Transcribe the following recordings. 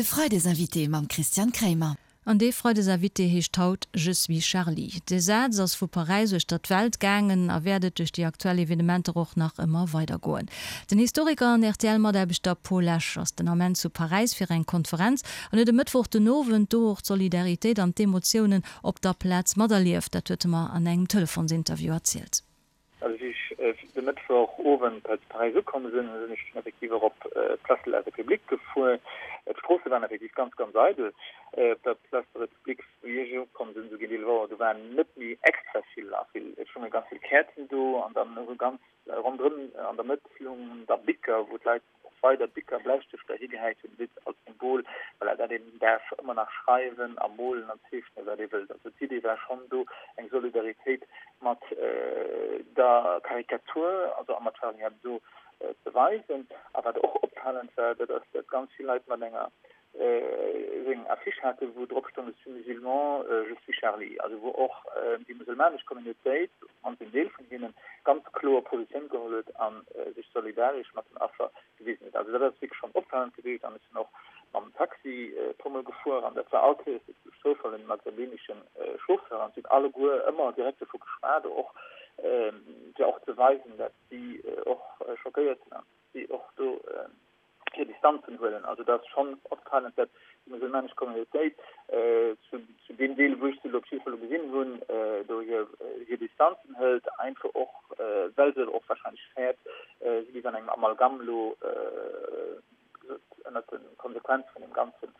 De Freidesinvité mam Christian Kremer. An dee Freidesinvité heescht haut Je suis Charlie. Dee Saz ass vu Paräis uechter d'Welt gaangen a wäert et duerch déi aktuell Evenementer och nach ëmmer weidergoen. Den Historiker an RTL-Mataarbechter Paul Lesch ass den Ament zu Paräis fir eng Konferenz an huet e Mëttwoch den Owend do och d'Solidaritéit an d'Emotiounen op der Plaz materlieft. Dat huet e mer an engem Telefonsinterview erzielt. Also wéi ech de Mëttwoch Owend hei zu Paräis ukomm sinn, sinn ech dunn effektiv och op d'Place de la République gefuer. D'Stroosse waren effektiv ganz, ganz eidel op der Place de la République. Wéi ech ukomm sinn, esou géint 11 Auer, do waren net méi extra vill a vill, et stounge ganz vill Käerzen do an dann esou ganz ronderëm an der Mëtt lungen da Bicker, wou d'Leit och weider Bicker, Bläistëfter higehäit hunn, wéi als Symbol, voilà, dat een däerf ëmmer nach schreiwen a molen an zeechnen, wat ee wëllt. Also d'Idee war schonn do, eng Solidaritéit mat der Karikatur, also a mat Charlie Hebdo ze weisen. A wat och opfalend war, dat ass, dat ganz vill Leit mat enger esou eng Affiche haten, wou drop stoung, Je suis musulman, je suis Charlie. Also wou och déi musulmanesch Communautéit, op d'mannst en Deel vun hinnen, ganz kloer Positioun geholl huet a sech solidaresch mat den Affer gewisen huet. Also dat ass wierklech schonn opfalend gewiescht. An ech sinn och mam Taxi e puermol gefuer an dat war all Kéiers duerch Zoufall en maghrebinesche Chauffeur an si hunn alleguer ëmmer direkt dovu geschwat, och fir och ze weisen, dat si och schockéiert sinn an si och do hir Distanzen huelen. Also dat ass schonn opfalend, datt déi musulmanesch Communautéit zu deem Deel, wou ech se elo op jidde Fall elo gesinn hunn, do hir Distanzen hëlt, einfach och well se och wahrscheinlech fäert, si géif an engem Amalgam elo ënnert de Konsequenze vun deem Ganzen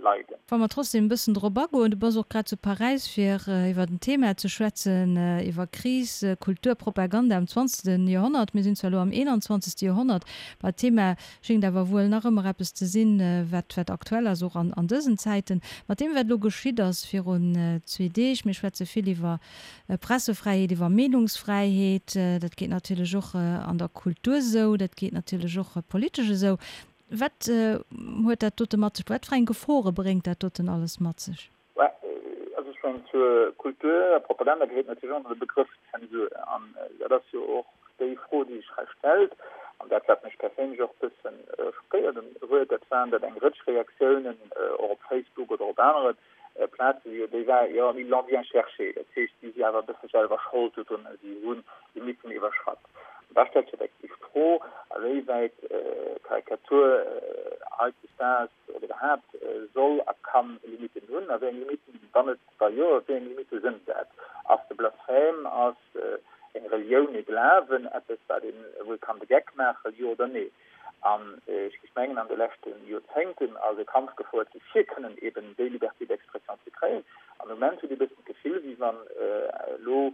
leiden. Wa mer trotzdem e bëssen drop agoen, du bass och grad zu Paräis fir iwwer en Thema ze schwätzen, iwwer Kris, Kultur, Propaganda am zwanzegste Joerhonnert. Mir sinn zwar elo am eenanzwanzegste Joerhonnert, ma d'Thema schéngt awer wuel nach ëmmer eppes ze sinn, wat wat aktuell ass, och an an dësen Zäiten. Mat deem wat elo geschitt ass virun zwee Deeg, mir schwätze vill iwwer Pressefräiheet, iwwer Meenungsfräiheet, dat geet natierlech och an der Kultur esou, dat geet natierlech och politesch esou. Wat huet dat dote mat sech? Wat fir eng Gefore bréngt dat doten alles mat sech? Also ech mengen, zur Kultur a Propaganda gehéiert natierlech och nach de Begrëff Zensur. An dat ass jo och déi Fro, déi sech hei stellt. An dat, wat mech perséinlech och e bësse schockéiert huet, dat waren, datt eng Rëtsch Reaktiounen och op Facebook oder op anere Plazen, jo, déi war, jo, ils l'ont bien cherché. Dat heescht, si si awer e bësse selwer Schold dodrun, si hunn Limitten iwwerschratt. An da stellt sech effektiv d'Fro, a wéiwäit Karikatur hautdesdaags oder iwwerhaapt soll a kann Limitten hunn, a wéi eng Limitten, wann et wa jo, wéi eng Limitte sënn dat? Ass de Blasphème, ass eng Relioun, ee Glawen eppes, wat een, wou ee kann de Geck maachen, jo oder nee? An ech géif mengen, an de leschte Joerzéngten ass e Kampf gefouert gi fir kënnen eben déi Liberté d'expression ze kréien. An am Moment huet ee bëssen d'Gefill, wéi wann elo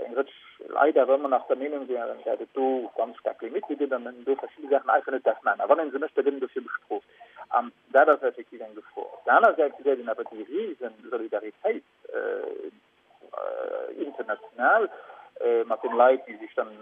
eng Rëtsch Leit awer ëmmer nach der Meenung wären, dat et do ganz staark Limitte gëtt an een do verschidde Saachen einfach net däerf maachen. A wann ee se mécht, da gëtt een dofir bestrooft. An dat ass effektiv eng Gefor. Op der aner Säit gesäit een awer déi rise Solidaritéit, international mat den Leit, déi sech dann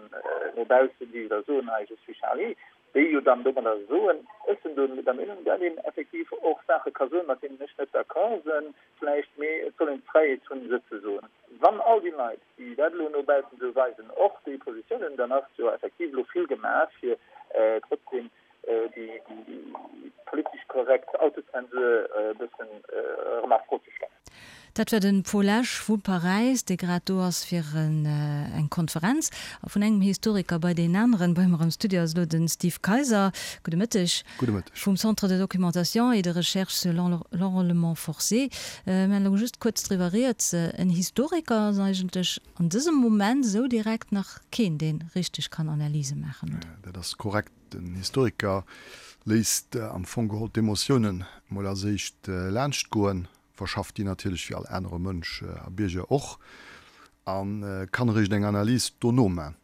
no baussen, déi da soen, hei je suis Charlie, déi jo dann domadder soen, ech sinn do der Meenung, datt een effektiv och Saache ka soen, mat deenen ech net d'accord sinn vläicht, mee et soll een d'Fräiheet hunn, se ze soen. Wann all déi Leit, déi dat elo no baussen esou weisen, och déi Positioun hunn, dann ass jo effektiv elo vill gemaach, fir trotzdem déi politesch korrekt Autozensur e bëssen erëm a Fro ze stellen. Dat war de Paul Esch vu Paräis, dee grad do ass fir eng Konferenz. A vun engem Historiker bei deen aneren. Bei mer am Studio ass elo de Steve Kayser. Gudde Mëtteg. Gudde Mëtteg. Vum Centre de documentation et de recherche sur l'enrôlement forcé. Mir han elo just kuerz driwwer rieds. En Historiker ass eigentlech an dësem Moment esou direkt nach keen, dee richteg kann Analyse maachen, oder? Dat ass korrekt. Den Historiker léisst am Fong geholl d'Emotiounen mol als éischt laanscht goen, verschafft déi natierlech wéi all anere Mënsch a Bierger och, a kann eréischt eng Analys dono man.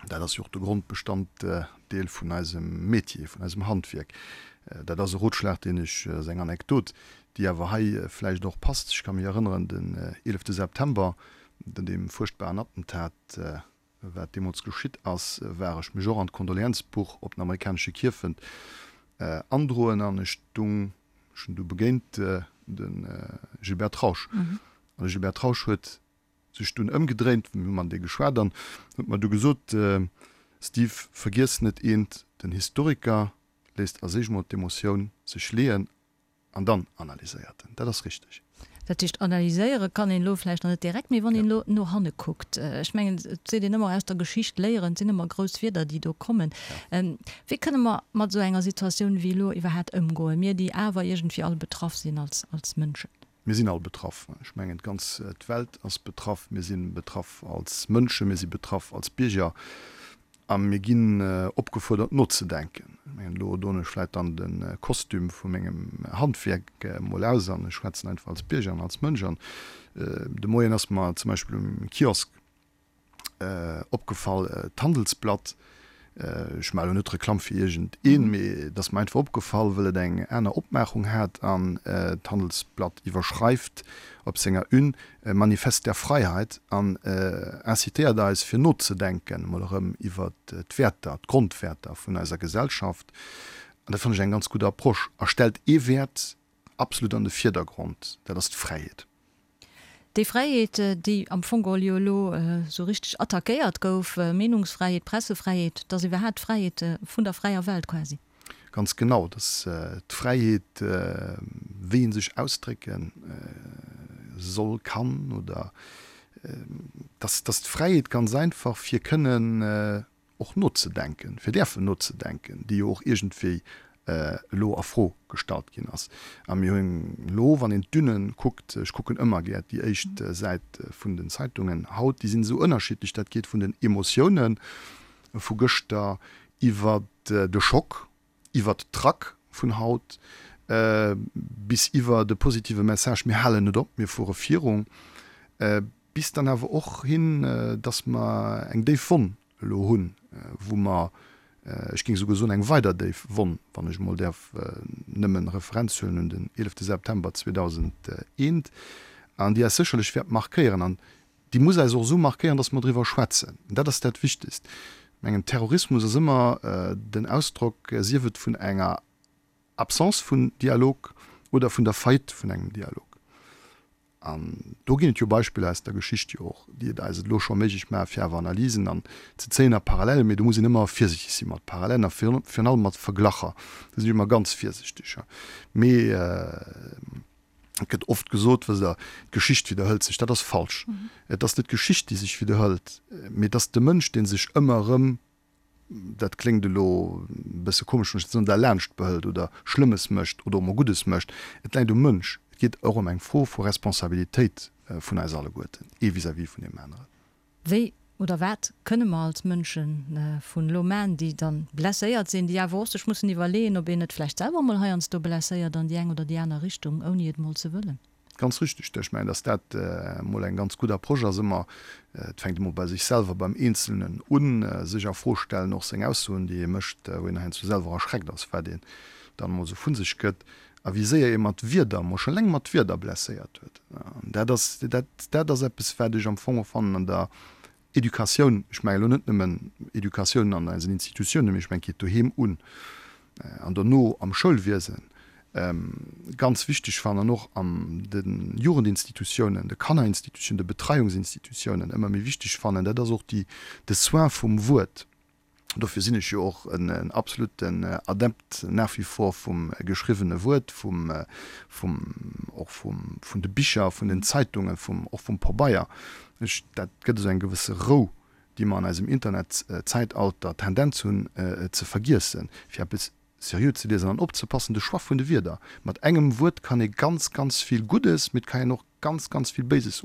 Dat ass jo och de Grondbestanddeel vun eisem Metier, vun eisem Handwierk. Dat ass e Rotschlag, deen ech, ass eng Anekdot, déi awer hei vläicht och passt. Ech ka mech erënneren, den 11 September, den deem fuerchtbaren Attentat, Wat deemools geschitt ass, war ech mech och an d'Kondolienzbuch op den amerikanesche Kierfent androen an ech dung, ech hunn du begéint de Gilbert Trausch. An de Gilbert Trausch huet sech dunn ëmgedréint, mir hu matenee geschwat an huet mer du gesot, Steve, vergiess net eent, den Historiker léisst als éischt mol d'Emotioun sech leeën. An dann analyséiert en. Dat ass richteg. Dat heescht, analyséiere kann een elo vläicht nach net direkt, mee wann een elo no hanne kuckt, ech mengen, et seet een ëmmer, aus der Geschicht léieren, et sinn ëmmer grouss Wierder, déi do kommen. Wéi kënne mer mat esou enger Situatioun wéi elo iwwerhaapt ëmgoen, mir, déi awer iergendwéi all betraff sinn als, als Mënschen? Mir sinn all betraff. Ech mengen, d'ganz d'Welt ass betraff. Mir si betraff als Mënschen, mir si betraff als Bierger. A mir ginn opgefuerdert nozedenken. Ech mengen, elo doen ech vläit dann de Kostüm vu mengem Handwierk emol aus an ech schwätzen einfach als Bierger an als Mënsch. An de Moien ass mer zum Beispill um Kiosk opgefall, d'Handelsblatt, ech maache elo net Reklamm fir iergend een, mee et ass mer einfach opgefall, wëll et eng aner Opmaachung hat an d'Handelsblatt iwwerschreift op senger Une, Manifest der Freiheit an incitéiert eis fir nozedenken emol erëm iwwer d'Wäerter, d'Grondwäerter vun eiser Gesellschaft. An dat fannen ech eng ganz gutt Approche a stellt ee Wäert absolut an de Virdergrond, dat ass d'Fräiheet. Déi Fräiheet, déi am Fong geholl jo elo esou richteg attackéiert gouf, Meenungsfräiheet, Pressefräiheet, dat ass iwwerhaapt d'Fräiheet vun der fräier Welt quasi. Ganz genau, dass d'Fräiheet, wéi ee sech ausdrécke soll, kann oder dass dass d'Fräiheet ganz einfach fir kënnen och nozedenken, fir däerfen nozedenken, déi jo och iergendwéi elo a Fro gestallt ginn ass. A mir hunn elo, wann een d'Une kuckt, ech kucken ëmmer gär déi éischt Säit vun den Zeitungen haut, déi sinn esou ënnerschiddlech, dat geet vun den Emotiounen vu gëschter iwwer de Schock, iwwer d'Trac vun haut bis iwwer de positive Message, mir halen net op, mir fuere virun, bis dann awer och hin, dass mer eng déif Wonn elo hunn, wou mer, ech géing esouguer soen, eng weider déif Wonn, wann ech emol däerf nëmmen Referenz huelen un den 11 September 2001, an déi eis sécherlech wäert markéieren. An Déi muss eis och esou markéieren, dass mer driwwer schwätzen. Dat ass dat Wichtigst. Ech mengen, Terrorismus ass ëmmer den Ausdrock, sief et vun enger Absence vun Dialog oder vun der Faillite vun engem Dialog. An do ginn et jo Beispiller aus der Geschicht jo och, déi et eis et elo scho méiglech maachen, fir awer Analysen an ze zéien a Parallelen. Mee do muss een ëmmer virsiichteg si mat Parallelen a virun allem mat Verglacher. Do sinn ech ëmmer ganz virsiichteg. Mee. Et gëtt oft gesot, wësst Der, d'Geschicht widderhëlt sech. Dat ass falsch. Et ass net d'Geschicht, déi sech widderhëlt, mee et ass de Mënsch, dee sech ëmmer erëm, dat kléngt elo e bësse komesch, wann ech dat soen, derlaanscht behëlt oder Schlëmmes mécht oder och mol Guddes mécht. Et läit um Mënsch. Et geet och ëm eng Fro vu Responsabilitéit vun eis alleguerten, ee vis-à-vis vun deem aneren. Wéi oder wat kënne mer als Mënsche vun elo man, déi dann blesséiert sinn, déi awer och sech mussen iwwerleeën, ob een net vläicht selwer emol heiansdo blesséiert an déi eng oder déi aner Richtung, ouni et emol ze wëllen? Ganz richtig. Ech mengen, dass dat emol eng ganz gutt Approche ass, ëmmer, et fänkt emol bei sech selwer, beim Eenzelnen un, sech a Fro stellen, och seng Aussoen, déi ee mécht, wou een heiansdo selwer erschreckt ass, wat een dann emol esou vu sech gëtt. A wéi séier ee mat Wierder, emol scho eleng mat Wierder blesséiert huet. An dat ass, dat, dat ass eppes, wat ech am Fong och fannen an der Educatioun, ech mengen elo net nëmmen Educatioun an eisen Institutiounen, mee ech mengen, et geet doheem un an dono am Schoulwiesen, ganz wichteg fannen an och an de Jugendinstitutiounen, de Kannerinstitutiounen, de Betreiungsinstitutiounen ëmmer méi wichteg fannen, dat ass och déi, de Soin vum Wuert. Dofir sinn ech jo och en absoluten Adept nach wie vor vum geschriwwene Wuert, vum, vum, och vum, vun de Bicher, vun den Zeitungen, vum, och vum Pabeier. Ech, dat gëtt esou eng gewësse Rou, déi mer an eisem Internetzäitalter d'Tendenz hunn ze vergiessen, fir eppes seriö ze liesen an opzepassen, de Choix vun de Wierder. Mat engem Wuert kann ee ganz, ganz vill Guddes, mee et kann een och ganz, ganz vill Béises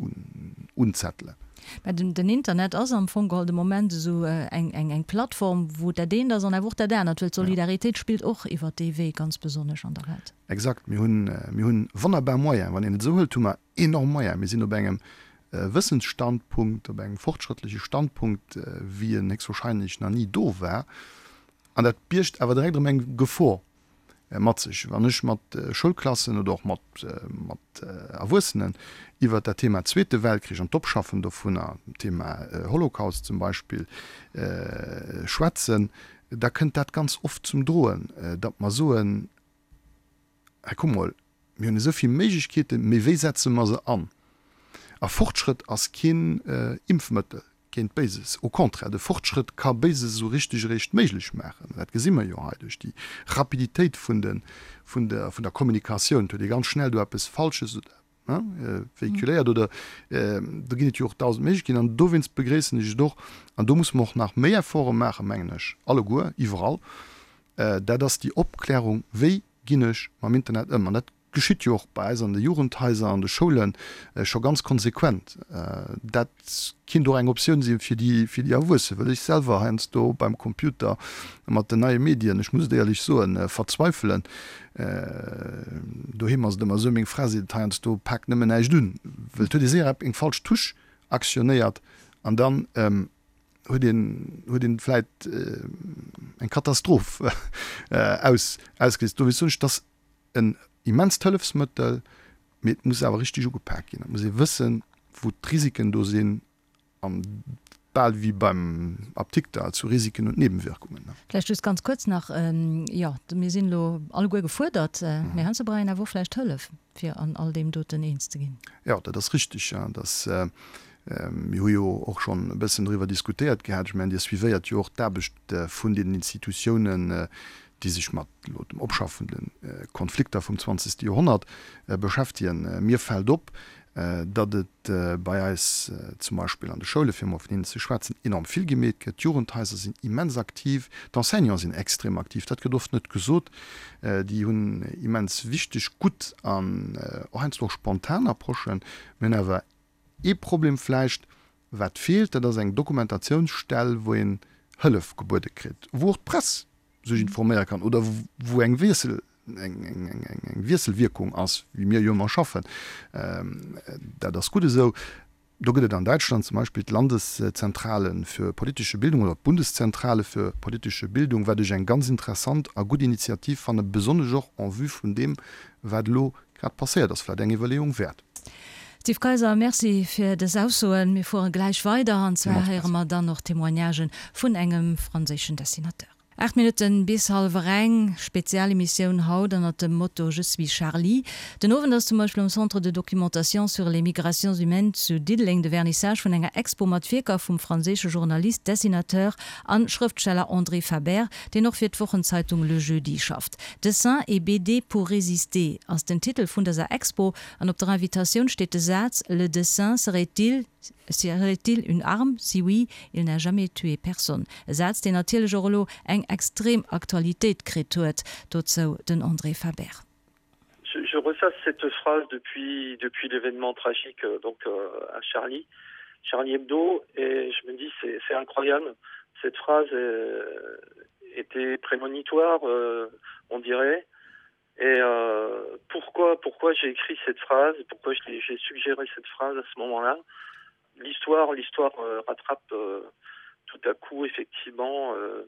unzettelen. Mä den Internet ass am Fong geholl de Moment esou eng Plattform, wou dat eent ass an awer och dat anert, well d'Solidaritéit spillt och iwwert dee Wee ganz besonnesch an der Welt. Exakt. Mir hunn, mir hunn wonnerbar Moyenen. Wann een et esou hëlt, hu mer enorm Moyenen. Mir sinn op engem Wëssensstandpunkt, op engem fortschrëttleche Standpunkt, wéi en héchstwahrscheinlech nach ni do war. An dat biergt awer direkt erëm eng Gefor mat sech. Wann ech mat Schoulklassen oder och mat mat Erwuessenen iwwert dat Thema Zweete Weltkrich an d'Opschaffen dovunner, Thema Holocaust zum Beispill, schwätzen, da kënnt dat ganz oft zum Droen, datt mer soen, Hei kuck mol, mir hunn esou vill Méiglechkeeten, mee wéi setze mer se an? A Fortschrëtt ass keen Impfmëttel. Géint Béises. Au contraire, de Fortschrëtt ka Béises esou richteg eréischt méiglech maachen. Dat gesi mer jo hei duerch déi Rapiditéit vun de, vun der, vun der Kommunikatioun. Et huet ee ganz schnell do eppes Falsches oder, hein, véhiculéiert oder do ginn et jo och dausend Méiglechkeeten. An dowéinst begréissen ech et och, an do musse mer och nach méi Efforte maachen, mengen ech, alleguer, iwwerall, dat ass déi Opklärung, wéi ginn ech mam Internet ëm. An dat Geschitt jo och bei eis an de Jugendhaiser, an de Schoule scho ganz konsequent. Dat kinnt och eng Optioun si fir déi, fir déi Erwuessen, well ech selwer heiansdo beim Computer mat den neie Medien, ech muss et éierlech soen, verzweifelen. Doheem ass et ëmmer esou, meng Fra seet et heiansdo, Pak nëmmen näischt un, well et huet ee séier eng falsch Touche aktionéiert an dann huet een, huet een vläit eng Katastroph aus, ausgeléist. Dowéinst soen ech, dass en immenst Hëllefsmëttel, mee et muss awer richteg ugepak ginn. Et muss ee wëssen, wou d'Risiken do sinn an bal wéi beim Apdikter zu Risiken und Nebenwirkungen. Vläicht just ganz kuerz nach, jo, mir sinn elo alleguer gefuerdert, mee heiansdo brauch een awer och vläicht Hëllef, fir an all deem doten eens ze ginn. Jo, dat ass richtig. Dass, mir hu jo och schonn e bëssen driwwer diskutéiert gehat. Ech mengen, Dir suivéiert jo och d'Aarbecht vun deenen Institutiounen, déi sech mat elo dem Opschaffe vun de Konflikter vum zwanzegste Joerhonnert beschäftegen. Mir fält op, datt et bei eis zum Beispill an de Schoule, fir emol vun hinnen ze schwätzen, enorm vill gemeet gëtt. D'Jugendhaiser sinn immens aktiv, d'Enseignante sinn extrem aktiv, dat gëtt oft net gesot. Déi hunn immens wichteg, gutt an och heiansdo och spontan Approchen. Mir hunn awer Ee Problem vläicht, wat feelt, dat ass eng Dokumentatiounsstell, wou een Hëllef gebuede kritt, wou och d'Press sech informéiere kann oder wou eng Wiessel, eng Wiesselwierkung ass, wéi mir jo ëmmer schaffen. Dat ass gutt esou. Do gëtt et an Däitschland zum Beispill d'Landeszentrale für politische Bildung oder d'Bundeszentrale für politische Bildung, wat ech eng ganz interessant a gutt Initiativ fannen, besonnesch och en vue vun deem, wat elo grad passéiert ass, vläicht eng Iwwerleeung wäert. Steve Kayser, Merci fir dës Aussoen. Mir fuere gläich weider an zwar héiere mer dann och Témoignagen vun engem franséischen Dessinateur. 8 Minutten bis hallwer eng, Spezialemissioun haut ënnert dem Motto Je suis Charlie. Den Owend ass zum Beispill am Centre de documentation sur les migrations humaines zu Diddeleng de Vernissage vun enger Expo mat Wierker vum franséische Journalist, Dessinateur an Schrëftsteller André Faber, deen och fir d'Wochenzeitung Le Jeudi schafft. Dessins et BD pour résister ass den Titel vun dëser Expo An op der Invitatioun steet de Saz, Le dessin serait-il serait-il une arme? Si oui, il n'a jamais tué personne. E Saz, deen natierlech och elo eng extrem Aktualitéit kritt huet. Dozou den André Faber. Je ressasse cette phrase depuis depuis l'événement tragique donc euh, à Charlie Charlie Hebdo et je me dis c'est incroyable cette phrase euh, était prémonitoire euh, on dirait Et euh, pourquoi pourquoi j'ai écrit cette phrase pourquoi j'ai suggéré cette phrase à ce moment là l'histoire l'histoire euh, rattrape euh, tout à coup effectivement euh,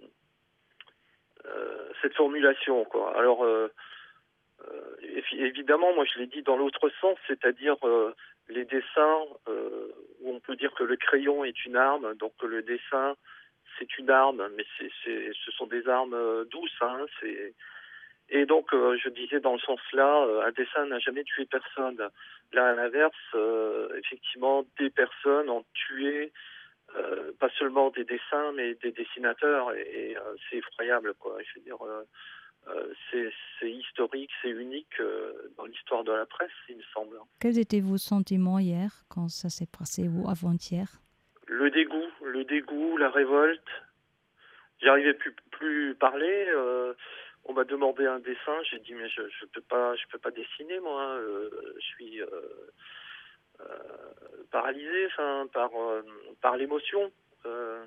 euh, cette formulation quoi alors euh, euh, évidemment moi je l'ai dit dans l'autre sens c'est à dire euh, les dessins euh, où on peut dire que le crayon est une arme donc le dessin c'est une arme mais c'est ce sont des armes euh, douces hein c'est Et donc euh, je disais dans le sens là euh, un dessin n'a jamais tué personne là à l'inverse euh, effectivement des personnes ont tué euh, pas seulement des dessins mais des dessinateurs et, et euh, c'est effroyable quoi je veux dire euh, euh, c'est historique c'est unique euh, dans l'histoire de la presse il me semble quels étaient vos sentiments hier quand ça s'est passé ou avant-hier le dégoût le dégoût la révolte j'arrivais plus plus parler euh, on m'a demandé un dessin j'ai dit mais je, je peux pas je peux pas dessiner moi euh, je suis euh, euh, paralysé enfin par euh, par l'émotion euh,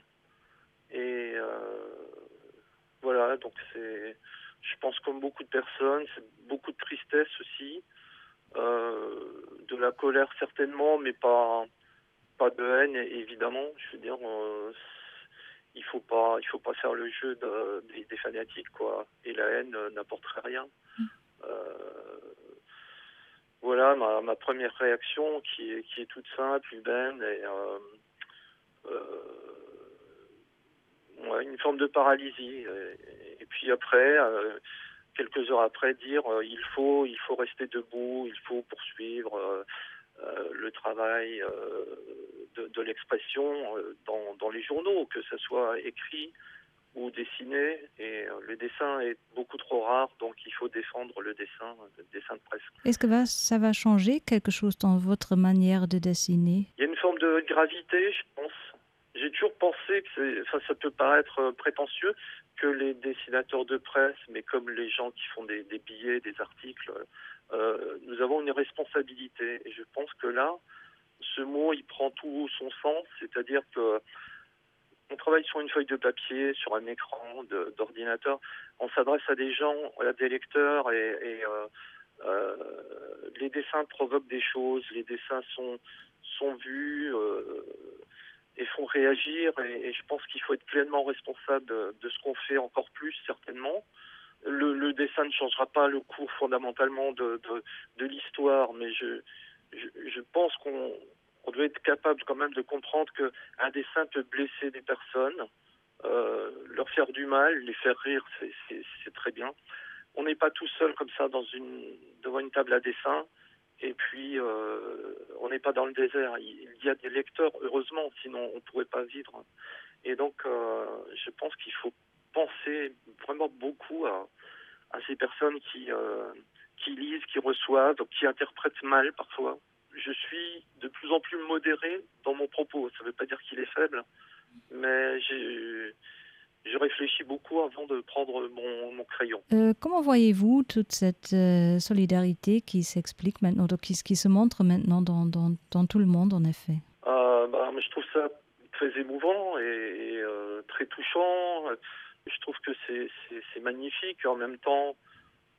et euh, voilà donc c'est je pense comme beaucoup de personnes c'est beaucoup de tristesse aussi euh, de la colère certainement mais pas pas de haine évidemment je veux dire euh, il faut pas il faut pas faire le jeu de, des, des fanatiques quoi et la haine euh, n'apporterait rien mm. euh, voilà ma, ma première réaction qui est qui est toute simple humaine et euh, euh, ouais, une forme de paralysie et, et puis après euh, quelques heures après dire euh, il faut il faut rester debout il faut poursuivre euh, euh, le travail euh, de, de l'expression euh, dans, dans les journaux, que ce soit écrit ou dessiné et euh, le dessin est beaucoup trop rare donc il faut défendre le dessin le dessin de presse. Est-ce que va, ça va changer quelque chose dans votre manière de dessiner? Il y a une forme de gravité, je pense. J'ai toujours pensé que enfin, ça peut paraître euh, prétentieux que les dessinateurs de presse, mais comme les gens qui font des, des billets, des articles, euh, nous avons une responsabilité. Et je pense que là, ce mot il prend tout son sens, c'est-à-dire que on travaille sur une feuille de papier, sur un écran d'ordinateur, on s'adresse à des gens, à des lecteurs et, et euh, euh, les dessins provoquent des choses, les dessins sont, sont vus euh, et font réagir et, et je pense qu'il faut être pleinement responsable de, de ce qu'on fait encore plus certainement. Le, le dessin ne changera pas le cours fondamentalement de, de, de l'histoire, mais je, je, je pense qu'on on doit être capable quand même de comprendre qu'un dessin peut blesser des personnes, euh, leur faire du mal, les faire rire, c'est très bien. On n'est pas tout seul comme ça dans une, devant une table à dessin et puis euh, on n'est pas dans le désert. Il, il y a des lecteurs, heureusement, sinon on ne pourrait pas vivre. Et donc euh, je pense qu'il faut penser vraiment beaucoup à, à ces personnes qui, euh, qui lisent, qui reçoivent, qui interprètent mal parfois je suis de plus en plus modéré dans mon propos. Ça ne veut pas dire qu'il est faible, mais je réfléchis beaucoup avant de prendre mon, mon crayon. Euh, comment voyez-vous toute cette euh, solidarité qui s'explique maintenant, donc qui, qui se montre maintenant dans, dans, dans tout le monde en effet euh, bah, Je trouve ça très émouvant et, et euh, très touchant. Je trouve que c'est magnifique. En même temps,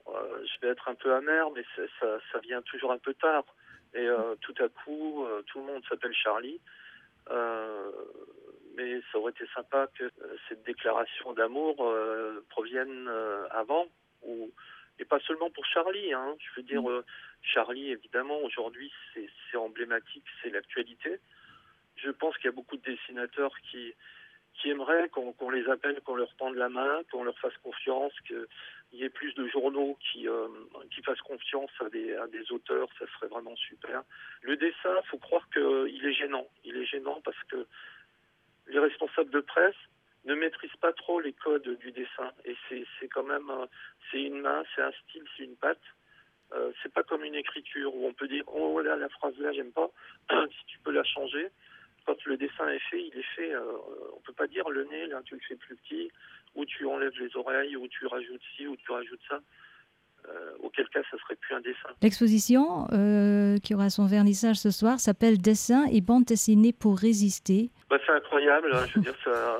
euh, je vais être un peu amer, mais ça, ça vient toujours un peu tard. Et euh, tout à coup, euh, tout le monde s'appelle Charlie. Euh, mais ça aurait été sympa que euh, cette déclaration d'amour euh, provienne euh, avant ou et pas seulement pour Charlie hein. je veux dire mmh. euh, Charlie évidemment aujourd'hui c'est emblématique c'est l'actualité je pense qu'il y a beaucoup de dessinateurs qui qui aimeraient qu'on qu les appelle qu'on leur tende la main qu'on leur fasse confiance qu'il y ait plus de journaux qui euh, qui fassent confiance à des, à des auteurs ça serait vraiment super le dessin faut croire qu'il est gênant il est gênant parce que les responsables de presse ne maîtrisent pas trop les codes du dessin et c'est quand même c'est une main c'est un style c'est une patte euh, c'est pas comme une écriture où on peut dire oh là la phrase là j'aime pas si tu peux la changer quand le dessin est fait il est fait euh, on peut pas dire le nez là tu le fais plus petit ou tu enlèves les oreilles ou tu rajoutes ci ou tu rajoutes ça euh, auquel cas ça serait plus un dessin. L'exposition euh, qui aura son vernissage ce soir s'appelle Dessin et bande dessinée pour résister. Bah, c'est incroyable, hein, je veux dire ça,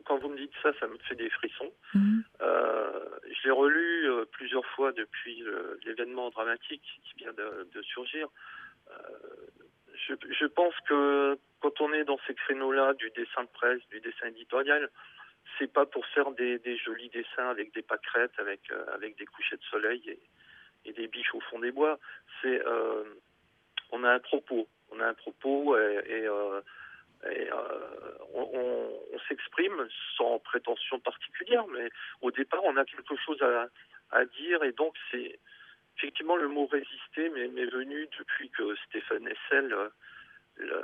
quand vous me dites ça, ça me fait des frissons. Mmh. Euh, je l'ai relu euh, plusieurs fois depuis euh, l'événement dramatique qui vient de, de surgir. Euh, je, je pense que quand on est dans ces créneaux-là du dessin de presse, du dessin éditorial, c'est pas pour faire des, des jolis dessins avec des pâquerettes, avec, euh, avec des couchers de soleil et, et des biches au fond des bois. C'est euh, on a un propos, on a un propos et, et, euh, et euh, on, on, on s'exprime sans prétention particulière, mais au départ on a quelque chose à, à dire et donc c'est effectivement le mot résister mais m'est venu depuis que Stéphane Essel euh,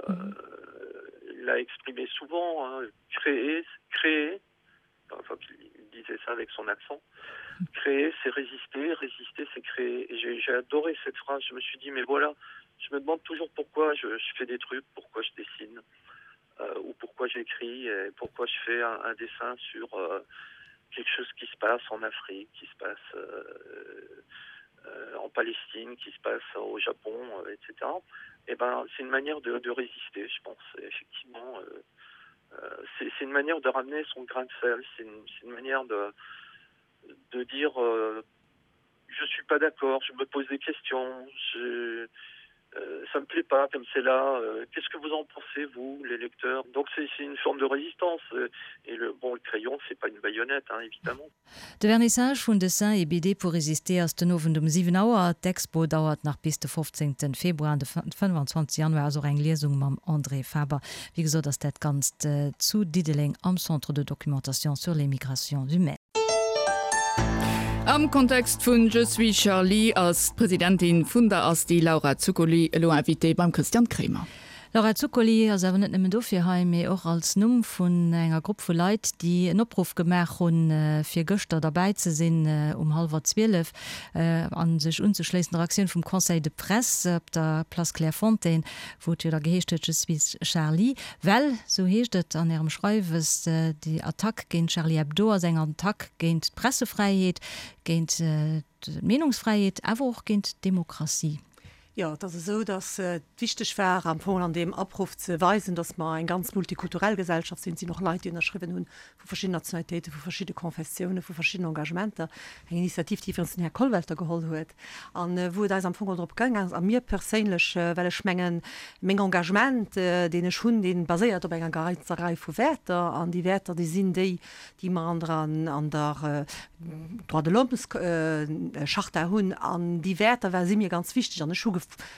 l'a exprimé souvent hein, créer créer enfin il disait ça avec son accent créer c'est résister résister c'est créer j'ai adoré cette phrase je me suis dit mais voilà je me demande toujours pourquoi je, je fais des trucs pourquoi je dessine euh, ou pourquoi j'écris et pourquoi je fais un, un dessin sur euh, quelque chose qui se passe en Afrique qui se passe euh, euh, en Palestine qui se passe au Japon euh, etc et ben c'est une manière de, de résister je pense effectivement euh, euh, c'est une manière de ramener son grain de sel c'est une, une manière de de dire euh, je suis pas d'accord je me pose des questions je euh, ça me plaît pas comme c'est là euh, qu'est ce que vous en pensez vous les lecteurs donc c'est une forme de résistance euh, et le bon le crayon c'est pas une baïonnette hein, évidemment De Vernissage vun Dessin et BD pour résister ass den Owend um 7 Auer. D'Expo dauert nach bis de 15 Februar an de 25 Januar ass och eng Liesung mam André Faber. Wéi gesot ass dat Ganzt zu Diddeleng am Centre de documentation sur les migrations humaines. Am Kontext vun Je suis Charlie ass d'Presidentin vun der Asti, Laura Zuccoli, elo Invitée beim Christian Kremer. Laura Zuccoli ass awer net nëmmen dofir hei, mee och als Numm vun enger Grupp vu Leit, déi en Opruff gemaach hunn, fir gëschter derbäi ze sinn um hallwer 12 a sech unzeschléissen der Aktioun vum Conseil de Presse op der Place Clairefontaine, wou et jo da geheescht huet, Je suis Charlie. Well, esou heescht et an Ärem Schreiwes, déi Attack géint Charlie Hebdo ass eng Attack géint d'Pressefräiheet, géint d'Meenungsfräiheet, awer och géint d'Demokratie. Jo, et ass esou, datt et wichteg war, am Fong an deem Opruff ze weisen, datt mer eng ganz multikulturell Gesellschaft sinn. Et sinn och Leit, déi ënnerschriwwen hunn, vu verschidden Nationalitéiten, vu verschidde Konfessiounen, vu verschidden Engagementer. Eng Initiativ, déi iwwregens den Här Kollwelter geholl huet an wou et eis am Fong och drop gaang ass, a mir perséinlech, well ech mengen, meng Engagement, deen ech hunn, dee baséiert op enger ganzer Rei vu Wäerter an déi Wäerter, déi sinn déi, déi mer an der an der Droits de l'Hommes-Charta hunn an déi Wäerter war si mir ganz wichteg an ech hu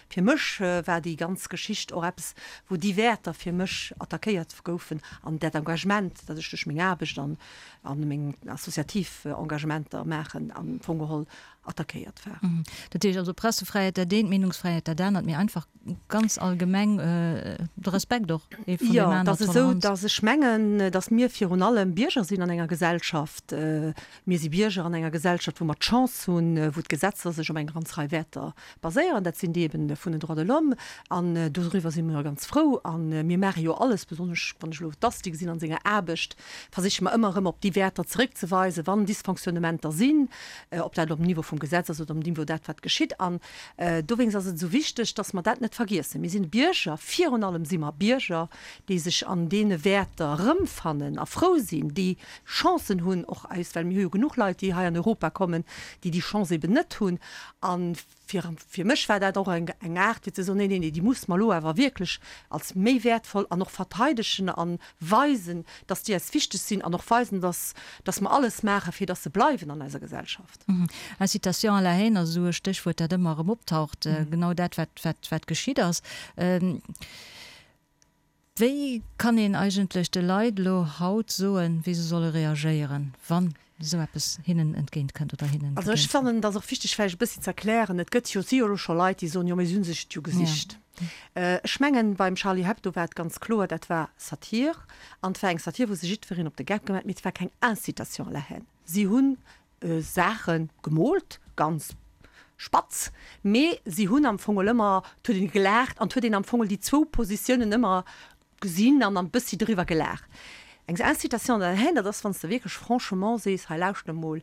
fir mech war déi ganz Geschicht och eppes, wou déi Wäerter fir mech attackéiert goufen an dat Engagement, dat ech duerch meng Aarbecht an a meng associativ Engagementer maachen, am Fong geholl attackéiert war. Dat heescht also Pressefräiheet dat eent, Meenungsfräiheet dat anert, mee einfach ganz allgemeng de Respekt och ee vun deem aneren, Jo, et ass esou, datt ech mengen, datt mir virun allem Bierger sinn an enger Gesellschaft. Mir si Bierger an enger Gesellschaft, wou mer d'Chance hunn, wou d'Gesetzer sech op eng ganz Rei Wäerter baséieren. Dat sinn déi eben vun den Droits de l'Homme. An doriwwer si mir ganz frou. A mir maache jo alles, besonnesch wann ech elo d'Asti gesinn an senger Aarbecht, versiche mer ëmmer erëm op déi Wäerter zeréckzeweisen, wann Dysfonctionnementer sinn, ob dat elo um Niveau vum Gesetz ass oder um Niveau dat, wat geschitt. An dowéinst ass et esou wichteg, dass mer dat net vergiessen. Mir sinn Bierger, virun allem si mer Bierger, déi sech an deene Wäerter erëmfannen a frou sinn, déi Chancen hunn, och eis, well mir hu jo genuch Leit, déi hei an Europa kommen, déi déi Chance eben net hunn. A fir, fir mech war dat och eng, eng Aart fir ze soen, Nee, nee, nee, déi musse mer elo awer wierklech als méi wäertvoll an och verteidegen a weisen, dass déi eis wichteg sinn an och weisen, dass, dass mer alles maachen, fir dass se bleiwen an eiser Gesellschaft. Incitation à la haine ass esou e Stéchwuert, dat ëmmer erëm optaucht, genau dat, wat, wat, wat geschitt ass. Wéi kann een eigentlech de Leit elo haut soen, wéi se solle reagéieren, wann esou eppes hinnen entgéint kënnt oder hinnen Also ech begéint? fannen, et ass och wichteg vläicht e bëssi ze erklären, et gëtt jo, si jo elo scho Leit, déi soen, jo mee si hu sech et jo gesicht. Ech mengen, beim Charlie Hebdo war et ganz kloer, dat war Satir an et war eng Satir, wou sech jiddwereen op de Geck gemaach huet, mee et war keng Incitation à la haine. Si hunn Saache gemoolt, ganz spatz, mee si hunn am Fong ëmmer, et huet een gelaacht an et huet een am Fong déi zwou Positiounen ëmmer gesinn an e bëssi driwwer gelaacht. Eng Incitation à la haine, dat ass, wann s de wierklech franchement sees, hei lauschter emol,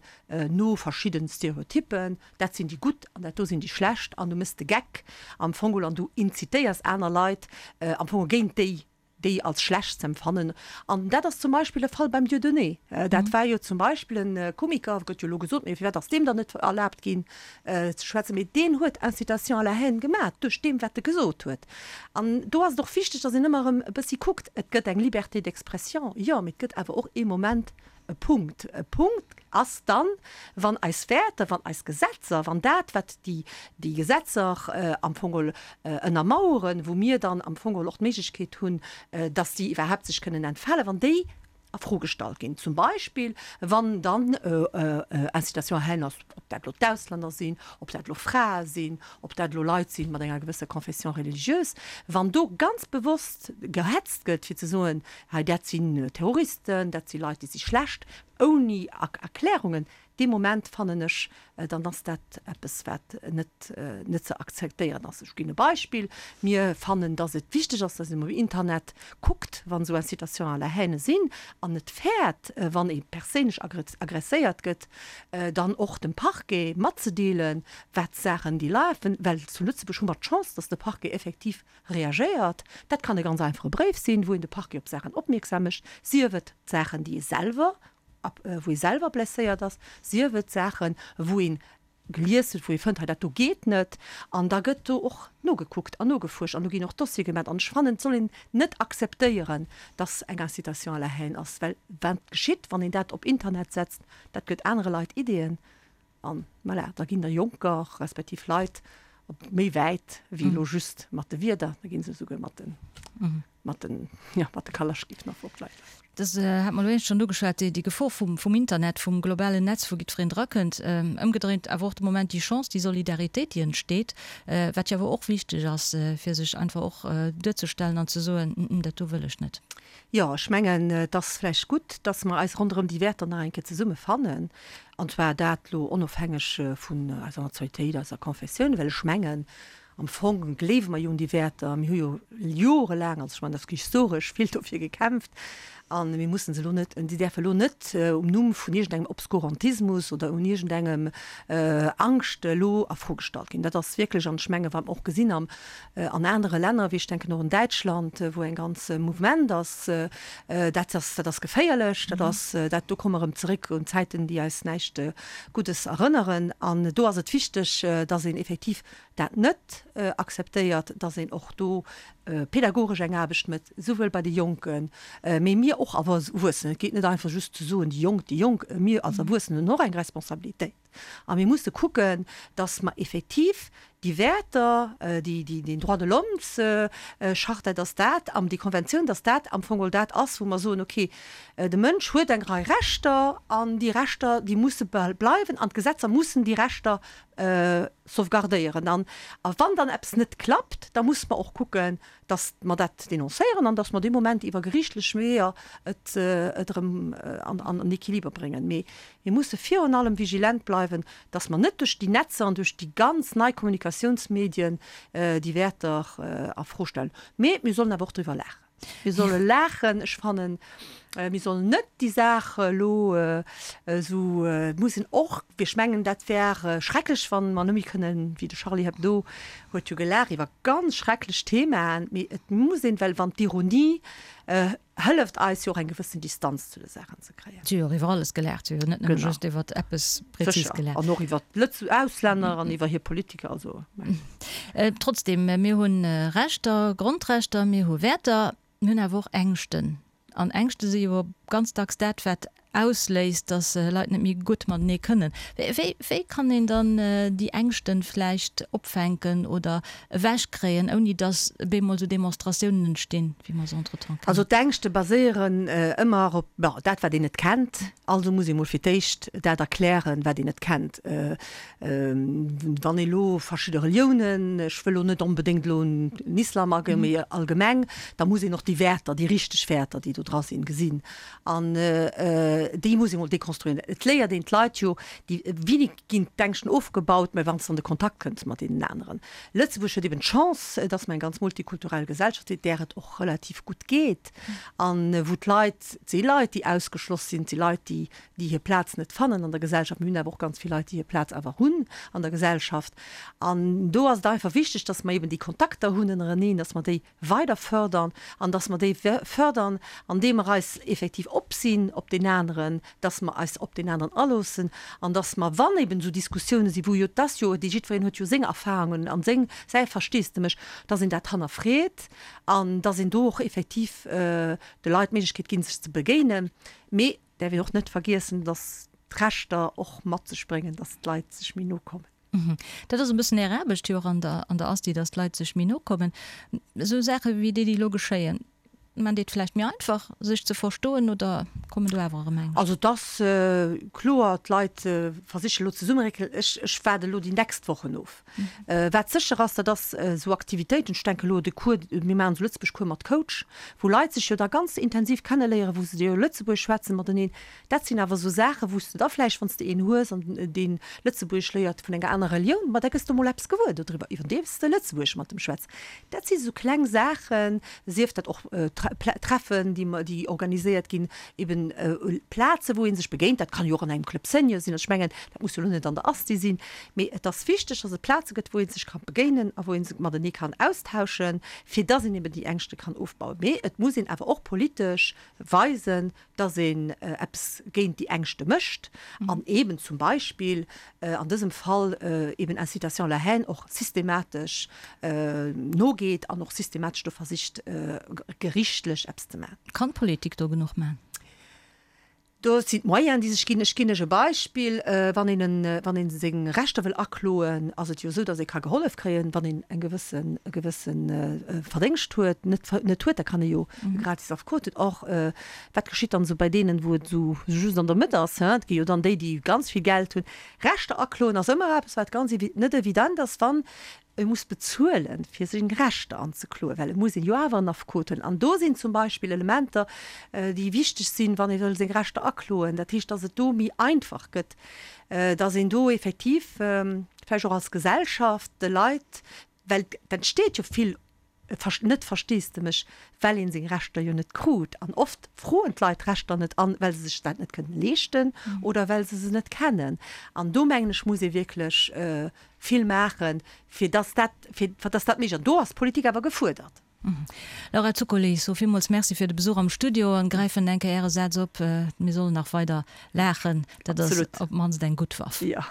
no verschidden Stereotyppen, dat sinn déi Gutt an dat do sinn déi Schlecht an du méchs de Geck am Fong an du incitéiers aner Leit am Fong géint déi déi als schlecht ze empfannen. An dat ass zum Beispill de Fall beim Dieudonné. Dat war jo zum Beispill e Komiker, gëtt jo elo gesot, mee firwat ass deem dann net erlaabt ginn ze schwätzen, mee deen huet Incitation à la haine gemaach duerch deem wat e gesot huet. An do ass et och wichteg, datt een ëmmer erëm e bëssi kuckt, et gëtt eng Liberté d'expression, jo, mee et gëtt awer och ee Moment, E Punkt. E Punkt ass dann, wann eis Wäerter, wann eis Gesetzer, wann dat, wat déi, déi Gesetzer am Fong geholl ënnermaueren, wou mir dann am Fong geholl och d'Méiglechkeet hunn, dass déi iwwerhaapt sech kënnen entfalen, wann déi a Fro gestallt ginn. Zum Beispill, wann dann Incitation à haine ass, ob dat elo d'Auslänner sinn, ob dat elo Frae sinn, ob dat elo Leit sinn mat enger gewësser Confession religieuse, wann do ganz bewosst gehetzt gëtt, fir ze soen, Hei, dat sinn Terroristen, dat si Leit, déi si schlecht, ouni Erklärungen. Dee Moment fannen ech, dann ass dat eppes, wat net net ze akzeptéieren ass. Ech ginn e Beispill, Mir fannen, datt et wichteg ass, datt een um Internet kuckt, wann esou Incitations à la haine sinn, an net fäert, wann ee perséinlech agresséiert gëtt, dann och dem Parquet matzedeelen, wat Saachen déi lafen. Well zu Lëtzebuerg hu mer d'Chance, datt de Parquet effektiv Reagéiert. Dat kann e ganz einfache Bréif sinn, wou een de Parquet op Saachen opmierksam mécht, sief et Saachen, déi ee selwer, wou ee selwer blesséiert ass, sief et Saachen, wou ee gelies huet, wou ee fënnt, hei dat do geet net. An da gëtt do och nogekuckt an nogefuerscht an do ginn och Dossiere gemaach. An ech fannen, et soll een net akzeptéieren, dass eng Incitation à la haine ass, well wat geschitt, wann een dat op Internet setzt, dat gëtt anere Leit Ideeën. An voilà, da ginn der Jonker, respektiv Leit op méi wäit wéi elo just mat de Wierder, da gi se esouguer mat de, mat den, jo, mat de Kalaschkiff nach op d'Leit lass. Dat hat mer elo éischt schonn ugeschwat, déi Gefor vum Internet, vum globalen Netz, wou jiddwereen drakënnt. Ëmgedréint awer och de Moment déi Chance, déi Solidaritéit, déi entsteet, wat jo awer och wichteg ass, fir sech einfach och duerzestellen an ze soen, Dat do wëll ech net. Jo, ech mengen, et ass vläicht gutt, dass mer eis ronderëm déi Wäerter nach eng Kéier zesumme fannen, an zwar dat elo onofhängeg vun eiser Nationalitéit, eiser Confessioun, well ech mengen, Am Fong gleewe mer jo un déi Wäerter. Mir hu jo jorelaang, also ech mengen, dat ass historesch, vill dofir gekämpft. A mir mussen se elo net, déi däerfe elo net um Numm vun iergendengem Obskurantismus oder un iergendengem Angscht elo a Fro gestallt ginn. Dat ass wierklech, an ech mengen, wat mer och gesinn am, an anere Länner, wéi ech denken och un Däitschland, wou eng ganz Mouvement ass, dat ass, dat ass geféierlech. Dat ass, dat, do komme mer erëm zeréck un Zäiten, déi eis näischt Guddes erënneren. An do ass et wichteg, dass een effektiv dat net akzeptéiert, dass een och do pedagogesch eng Aarbecht mécht, souwuel bei de Jonken, mee mir och Erwuessenen. Et geet net einfach just ze soen, déi Jonk, déi Jonk. Mir als Erwuessen hunn och eng Responsabilitéit a mir musse kucken, dass mer effektiv déi Wäerter, déi, déi, den Droits de l'Hommes-Charta, dass dat am, déi Konventioun, dass dat am Fong geholl dat ass, wou mer soen, okay, de Mënsch huet eng Rei Rechter an déi Rechter, déi musse bleiwen an d'Gesetzer mussen déi Rechter sauvegardéieren. An wann dann eppes net klappt, da musse mer och kucken, datt mer dat denoncéieren an datt mer dee Moment iwwer geriichtlech Weeër et erëm an den Equiliber bréngen. Mee mir musse virun allem vigilent bleiwen, datt mer net duerch déi Netzer an duerch déi ganz nei Kommunikatiounsmedien déi Wäerter a Fro stellen. Mee mir sollen awer och driwwer laachen. Mir solle laachen. Ech fannen, mir sollen net déi Saach elo esou, et muss een och, ech mengen, dat wär schrecklech, wa mer net méi kënnen, wéi de Charlie Hebdo huet jo gelaacht iwwer ganz schrecklech Themaen, mee et muss een, well wann d'Ironie hëlleft eis jo och eng gewëssen Distanz zu de Saachen ze kréien. Si hu jo och iwwer alles gelaacht, si hu jo net nëmme just iwwer eppes prezis gelaacht. Sécher, an och iwwer d'Lëtz Auslänner an iwwer hir Politiker, also. Trotzdem, mir hu Rechter, Grondrechter, mir hu Wäerter, mir hunn awer och Ängschten. An Ängschte si jo ganz dacks dat, wat ausléist, datt Leit net méi gutt matenee kënnen. Wéi, wéi kann een dann déi Ängschten vläicht opfänken oder ewechkréien, ouni datt bemol esou Demonstratiounen entstinn, wéi mer se entretemps kennen? Also d'Ängschte baséieren ëmmer op, bon, dat wat een net kennt. Also muss ee mol fir d'éischt dat erklären, wat een net kennt. Wann ee lo verschidde Reliounen, ech wëll lo net onbedéngt elo un den Islam agoen, mee allgemeng, da muss een och déi Wäerter, déi richteg Wäerter, déi do dra sinn, gesinn. An déi muss ee mol dekonstruieren. Et léiert een d'Leit jo, déi, wéini ginn d'Ängschten ofgebaut, mä wann s de an de Kontakt kënns mat deenen aneren. Lëtzebuerg huet eben d'Chance, dass mer eng ganz multikulturell Gesellschaft sinn, där et och relativ gutt geet an wou d'Leit, et si Leit, déi ausgeschloss sinn, et si Leit, déi déi hir Plaz net fannen an der Gesellschaft. Mir hunn awer och ganz vill Leit, déi hir Plaz awer hunn an der Gesellschaft. An do ass et einfach wichteg, dass mer eben déi Kontakter hunn ënnereneen, dass mer déi weider fördern an dass mer déi fördern, andeem mer eis effektiv op sinn op deen aneren, dass mer eis op deen aneren aloossen an dass mer, wann eben esou Diskussiounen sinn, wou jo, et ass jo, déi jiddwereen huet jo seng Erfahrungen an seng, säi Versteesdemech, dass een dat hannerfreet an dass een do och effektiv de Leit d'Méiglechkeet ginn, sech ze begéinen. Mee Däerf een och net vergiessen, dass d'Rechter och mat sech bréngen, dass d'Leit sech méi no kommen. Dat ass e bëssen Är Aarbecht jo och an der an der Asti, dass d'Leit sech méi no kommen. Esou Saache wéi déi, déi elo geschéien, maan déi et vläicht méi einfach, sech ze verstoen oder kommen do awer erëm Ängscht? Also et ass kloer, d'Leit versiche elo zesummeréckelen. Ech ech waarde elo déi nächst Wochen of. Wat sécher ass, dat ass esou Aktivitéiten, ech denke elo de Cours, mir maachen esou Lëtzebuerg-Cours mat Coach, wou Leit sech jo da ganz intensiv kenneléieren, wou se jo Lëtzebuergesch schwätzen mateneen. Dat sinn awer esou Saachen, wou s de da vläicht, wann s de een hues an deen Lëtzebuergesch léiert vun enger anerer Relioun, ma da gëss de mol eppes gewuer dodriwwer, iwwerdeems de Lëtzebuergesch mat em schwätz. Dat si sou kleng Saachen, sief dat och Treffen, déi mer, déi organiséiert ginn, eben Plaze wou ee sech begéint. Dat kann jo och an engem Club Senior sinn. Also ech mengen, dat muss jo elo net an der Asti sinn, mee et ass wichteg, dass et Plaze gëtt, wou ee sech ka begéinen a wou ee sech matenee kann austauschen, fir dass een eben déi Ängschte kann ofbauen. Mee et muss een awer och politesch weisen, dass een eppes géint déi Ängschte mécht an eben zum Beispill an dësem Fall eben Incitation à la haine och systematesch nogeet an och systematesch do versicht gerichtlech eppes ze maachen. Kann d'Politik do genuch maachen? Do sinn d'Moyenen, déi sech ginn. Ech ginn lech e Beispill, Wann een en, wann ee seng Rechter wëll akloen, ass et jo esou, datt ee ka gehollef kréien, wann een eng gewëssen, e gewësse Verdéngscht huet, net, net huet, da kann ee jo e gratis Affekot hunn. Or, wat geschitt dann esou bei deenen, wou et esou just an der Mëtt ass, hein? Et gi jo dann déi, déi ganz vill Geld hunn. Rechter akloen ass ëmmer eppes, wat ganz evi, net evident ass, wann E muss bezuelen, fir seng Rechter anzekloen, well et muss een jo awer en Affekot huelen. An do sinn zum Beispill Elementer, déi wichteg sinn, wann ee wëll seng Rechter akloen. Dat heescht, dass et do méi einfach gëtt, dass een do effektiv vläicht och als Gesellschaft de Leit, well et entsteet jo vill net Versteesdemech, well ee seng Rechter jo net krut. An oft froen d'Leit d'Rechter net an, well se sech dat net kënnen leeschten oder well se se net kennen. An do, mengen ech, muss ee wierklech vill maachen, fir dass dat, fir dass dat méiglech ass. An do ass d'Politik awer gefuerdert. Laura Zuccoli, ech soe villmools Merci fir de Besuch am Studio an gräifen eng Kéier Äre Saz op, Mir sollen nach weider laachen, dat ass op d'mannst eng gutt Waff. Jo.